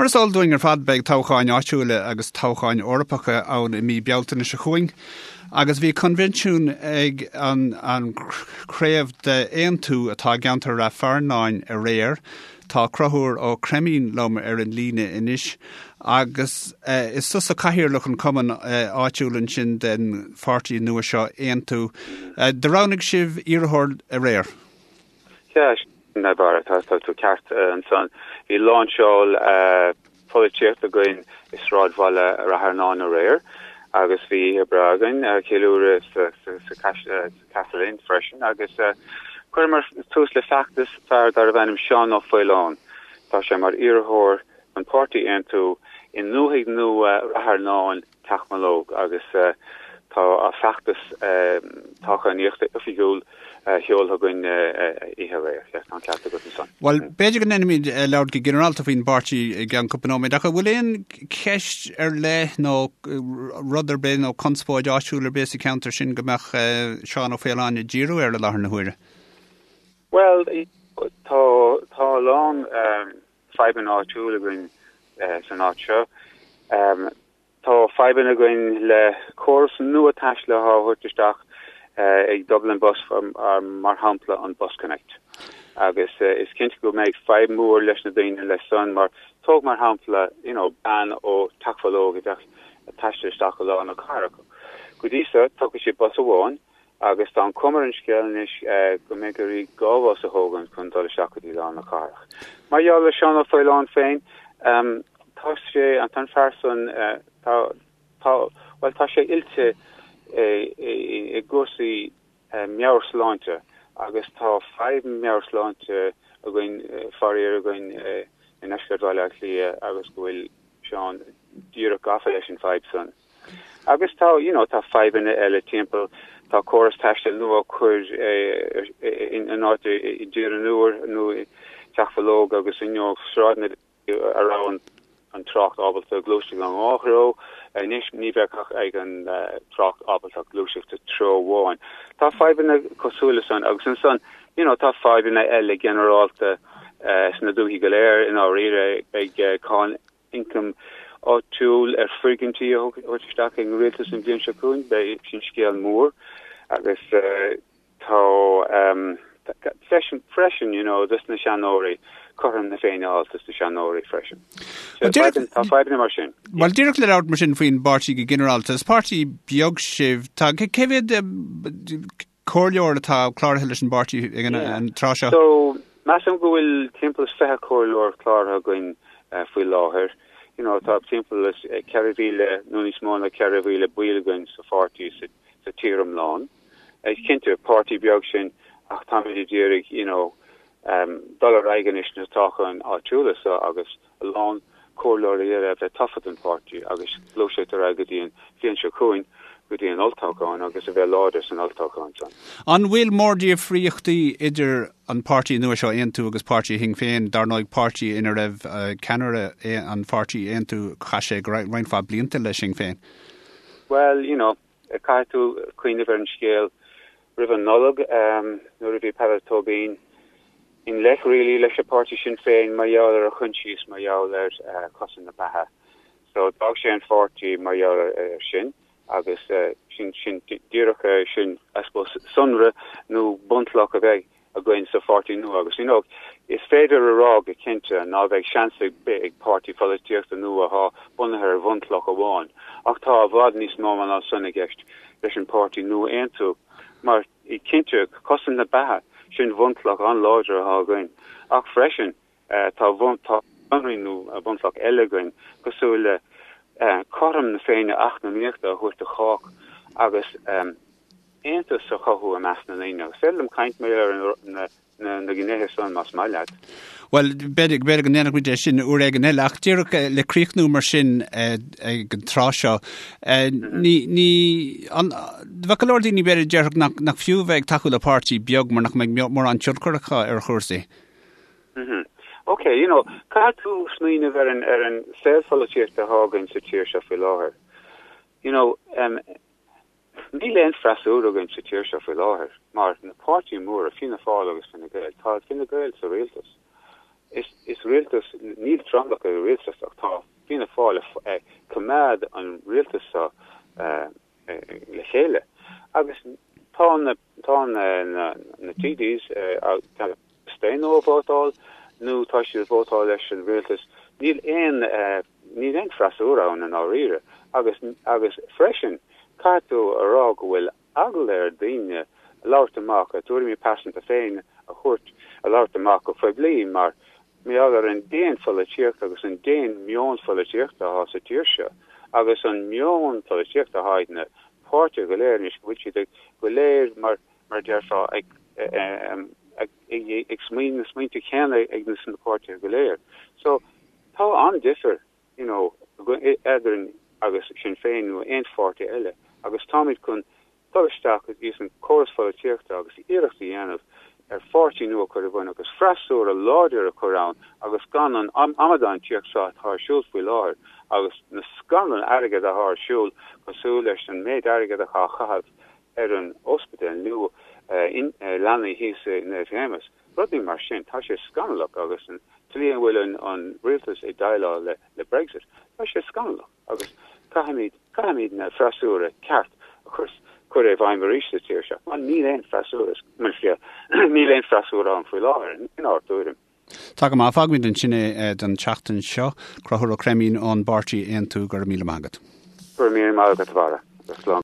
Mar is eol dúinn ar fad beidh toghcháin áitiúla agus toghcháin Eorpacha ann i mí Bealtaine seo chugainn agus bhí coinbhinsiún ag an an craobh d'Aontú atá i gceantar Rath Fearnáin aréir. Tá Conchúr Ó Creimín liom ar an líne anois agus is tusa cathaoirleach an chumainn áitiúil ansin den pháirtí nua seo Aontú. Do roghnaigh sibh iarrthóir aréir? Sea, sin é Barra, tá tú ceart ansan. Bhí láinseáil pholaitíochta againn i sráidbhaile Rath Fearnáin aréir agus bhí oíche breá againn, ceiliúradh sa Castle Inn freisin agus chuireamar tús le feachtas fear darbh ainm Seán Ó Faoláin. Tá sé mar iarrthóir don pháirtí Aontú i ndúthaigh nua Rath Fearnáin, Teach Mológ agus tá a feachtas toghchánaíochta oifigiúil seoltha againn oíche aréir. Tá an ceart agat ansan. Bhuel, b'fhéidir go ndéanfaimid labhairt go ginearálta faoin bpáirtí i gceann cúpla nóiméad, ach an bhfuil aon cheist ar leith nó rud ar bith nó conspóid áitiúil ar bith sa cheantar sin go mbeadh Seán Ó Faoláin ag díriú air i láthair na huaire? Bhuel, tá tá a lán fadhbanna áitiúil againn san áit seo. Tá fadhbanna againn le córas nua taistil atá á thabhairt isteach ag Dublin Bus mar shampla an BusConnect. Agus is cinnte go mbeidh fadhb mhór leis na daoine leis san mar tóg mar shampla you know bean ó Teach Bhológ a bheadh ag taisteal isteach go lár na cathrach. Go dtí seo tógfaidh sí bus amháin Agus tá an cuma ar an scéal anois go mbeidh uirthi 2 bhus a thógaint chun dul isteach go dtí lár na cathrach. Mar gheall ar Seán Ó Faoláin féin, tá sé, tá an fear san, tá, tá, bhuel tá sé oilte i gcúrsaí meabhairshláinte agus tá fadhb meabhairshláinte againn, faraor againn i ndeisceart Bhaile Átha Cliath agus go bhfuil Seán díreach gafa leis an bhfadhb san. Agus tá, you know, tá fadhbanna eile timpeall, tá córas taistil nua á chur in áit i dTír an Iúir nó i Teach Bhológ agus you know sráideanna a raibh an trácht ábalta gluaiseacht in dhá threo, anois ní bheadh ach ag an trácht ábalta gluaiseacht i treo amháin. Tá fadhbanna cosúil le san agus ansan, you know, tá fadhbanna eile ginearálta sna dúichí go léir i ndáiríre, beidh cáin ioncaim áitiúil ar foirgintí a thabhairt isteach ag an rialtas an bhliain seo chugainn. Beidh sin scéal mór agus tá freisin, freisin, you know, dos na seanóirí, cothrom na Féinne a fháil dos na seanóirí freisin. Tá fadhbanna mar sin. Bhuel, díreach le labhairt mar sin faoin bpáirtí go ginearálta, is páirtí beag sibh. Tá, cé mhéad comhairleoir atá cláraithe leis an bpáirtí ag an tráth seo? So, measaim go bhfuil timpeall is 20 comhairleoir cláraithe againn faoi láthair. You know, tá timpeall is 4,000 nó níos mó ná 4,000 baill againn sa pháirtí sa tír iomlán. Is cinnte, páirtí beag sinn ach táimid ag iarraidh, you know, dul ar aghaidh anois sna toghcháin áitiúla seo agus a lán comhairleoirí eile a bheith tofa don pháirtí agus gluaiseacht ar aghaidh go dtí an bhliain seo chugainn, go dtí an olltoghchán agus a bheith láidir san olltoghchán san. An bhfuil mórdhifríochtaí idir an páirtí nua seo Aontú agus páirtí Shinn Féin, dar ndóigh páirtí ina raibh ceannaire an pháirtí Aontú, chaith sé roinnt mhaith blianta le Sinn Féin? Bhuel, you know, caithfidh tú cuimhneamh ar an scéal roimh an Nollaig nuair a bhí Peadar Tóibín i ngleic really leis an páirtí Sinn Féin mar gheall ar a choinsias mar gheall ar chosaint na beatha. So d'fhág sé an pháirtí mar gheall ar sin agus sin sin díreach sin I suppose sonra nó bunchloch a bheidh againn sa pháirtí nua agus you know is féidir a rá go cinnte ná beidh seans ar bith ag páirtí pholaitíochta nua atá bunaithe ar bhunchloch amháin ach tá i bhfad níos mó ná san i gceist leis an páirtí nua Aontú mar cinnte cosaint na beatha sin bhunchloch an-láidir atá againn ach freisin tá tá sonraí nó bunchloch eile againn cosúil le cothrom na Féinne eacnamaíochta a thabhairt do chách agus aontas a chothú i measc na ndaoine. Agus féidir liom caint mar ar na gnéithe san más maith leat. Bhuel, b'fhéidir go ndéanfaidh muid é sin uair éigin eile, ach díreach le críochnú mar sin ag an tráth seo, ní, ní, an, bheadh go leor daoine b'fhéidir a déarfadh nach, nach fiú bheith ag tacú le páirtí beag mar nach mbeidh mórán tionchar acu ar chúrsaí. Mm-hmm. Ok, you know, caithfidh tú smaoineamh ar an, ar an saol pholaitíochta atá againn sa tír seo faoi láthair. You know, um, Níl aon freasúra againn sa tír seo faoi láthair, mar na páirtí móra, Fianna Fáil agus Fine Gael, tá Fine Gael sa rialtas. Is, is rialtas, níl tromlach ag an rialtas ach tá Fianna Fáil ag coimeád an rialtas seo le chéile agus tá na, tá na, na, na TDs ag staonadh ó vótáil nó tá siad ag vótáil leis an rialtas. Níl aon, níl aon freasúra ann i ndáiríre agus, agus freisin caithfidh tú a rá go bhfuil eagla ar daoine labhairt amach, a dtuairimí pearsanta féin a thabhairt, a labhairt amach go poiblí mar gheall ar an déan-pholaitíocht agus an déan-meon pholaitíochta atá sa tír seo agus an meon polaitíochta atá ag na páirtithe go léir anois go bhfuil siad go léir mar mar a déarfá ag ag ag smaoineamh na smaointe céanna ag na páirtithe go léir. So tá an-difear you know, eadrainn agus Sinn Féin nó aon pháirtí eile agus táimid chun dul isteach ins an córas pholaitíochta agus iarracht a dhéanamh ar pháirtí nua a chur i bun agus freasúra láidir a chur ann agus gan an amadántíocht seo atá ar siúl faoi láthair agus na scannáin airgead atá ar siúl cosúil leis an méid airgead atá á chaitheamh ar an ospidéal nua leanaí thíos i Naomh Shéamus. Rudaí mar sin, tá sé scannalach agus an tslí a bhfuil an rialtas ag déileáil le Brexit, tá sé scannalach agus caithfimid, caithfimid na freasúra ceart a chur, cur i bhfeidhm arís sa tír seo mar níl aon freasúra, níl aon freasúra ann faoi láthair, inár dtuairim. Tá go maith, fágfaimid ansin é don tseachtain seo. Conchúr Ó Creimín ón bpáirtí Aontú, go raibh míle maith agat. Go raibh míle maith agat, a Bharra. Slán.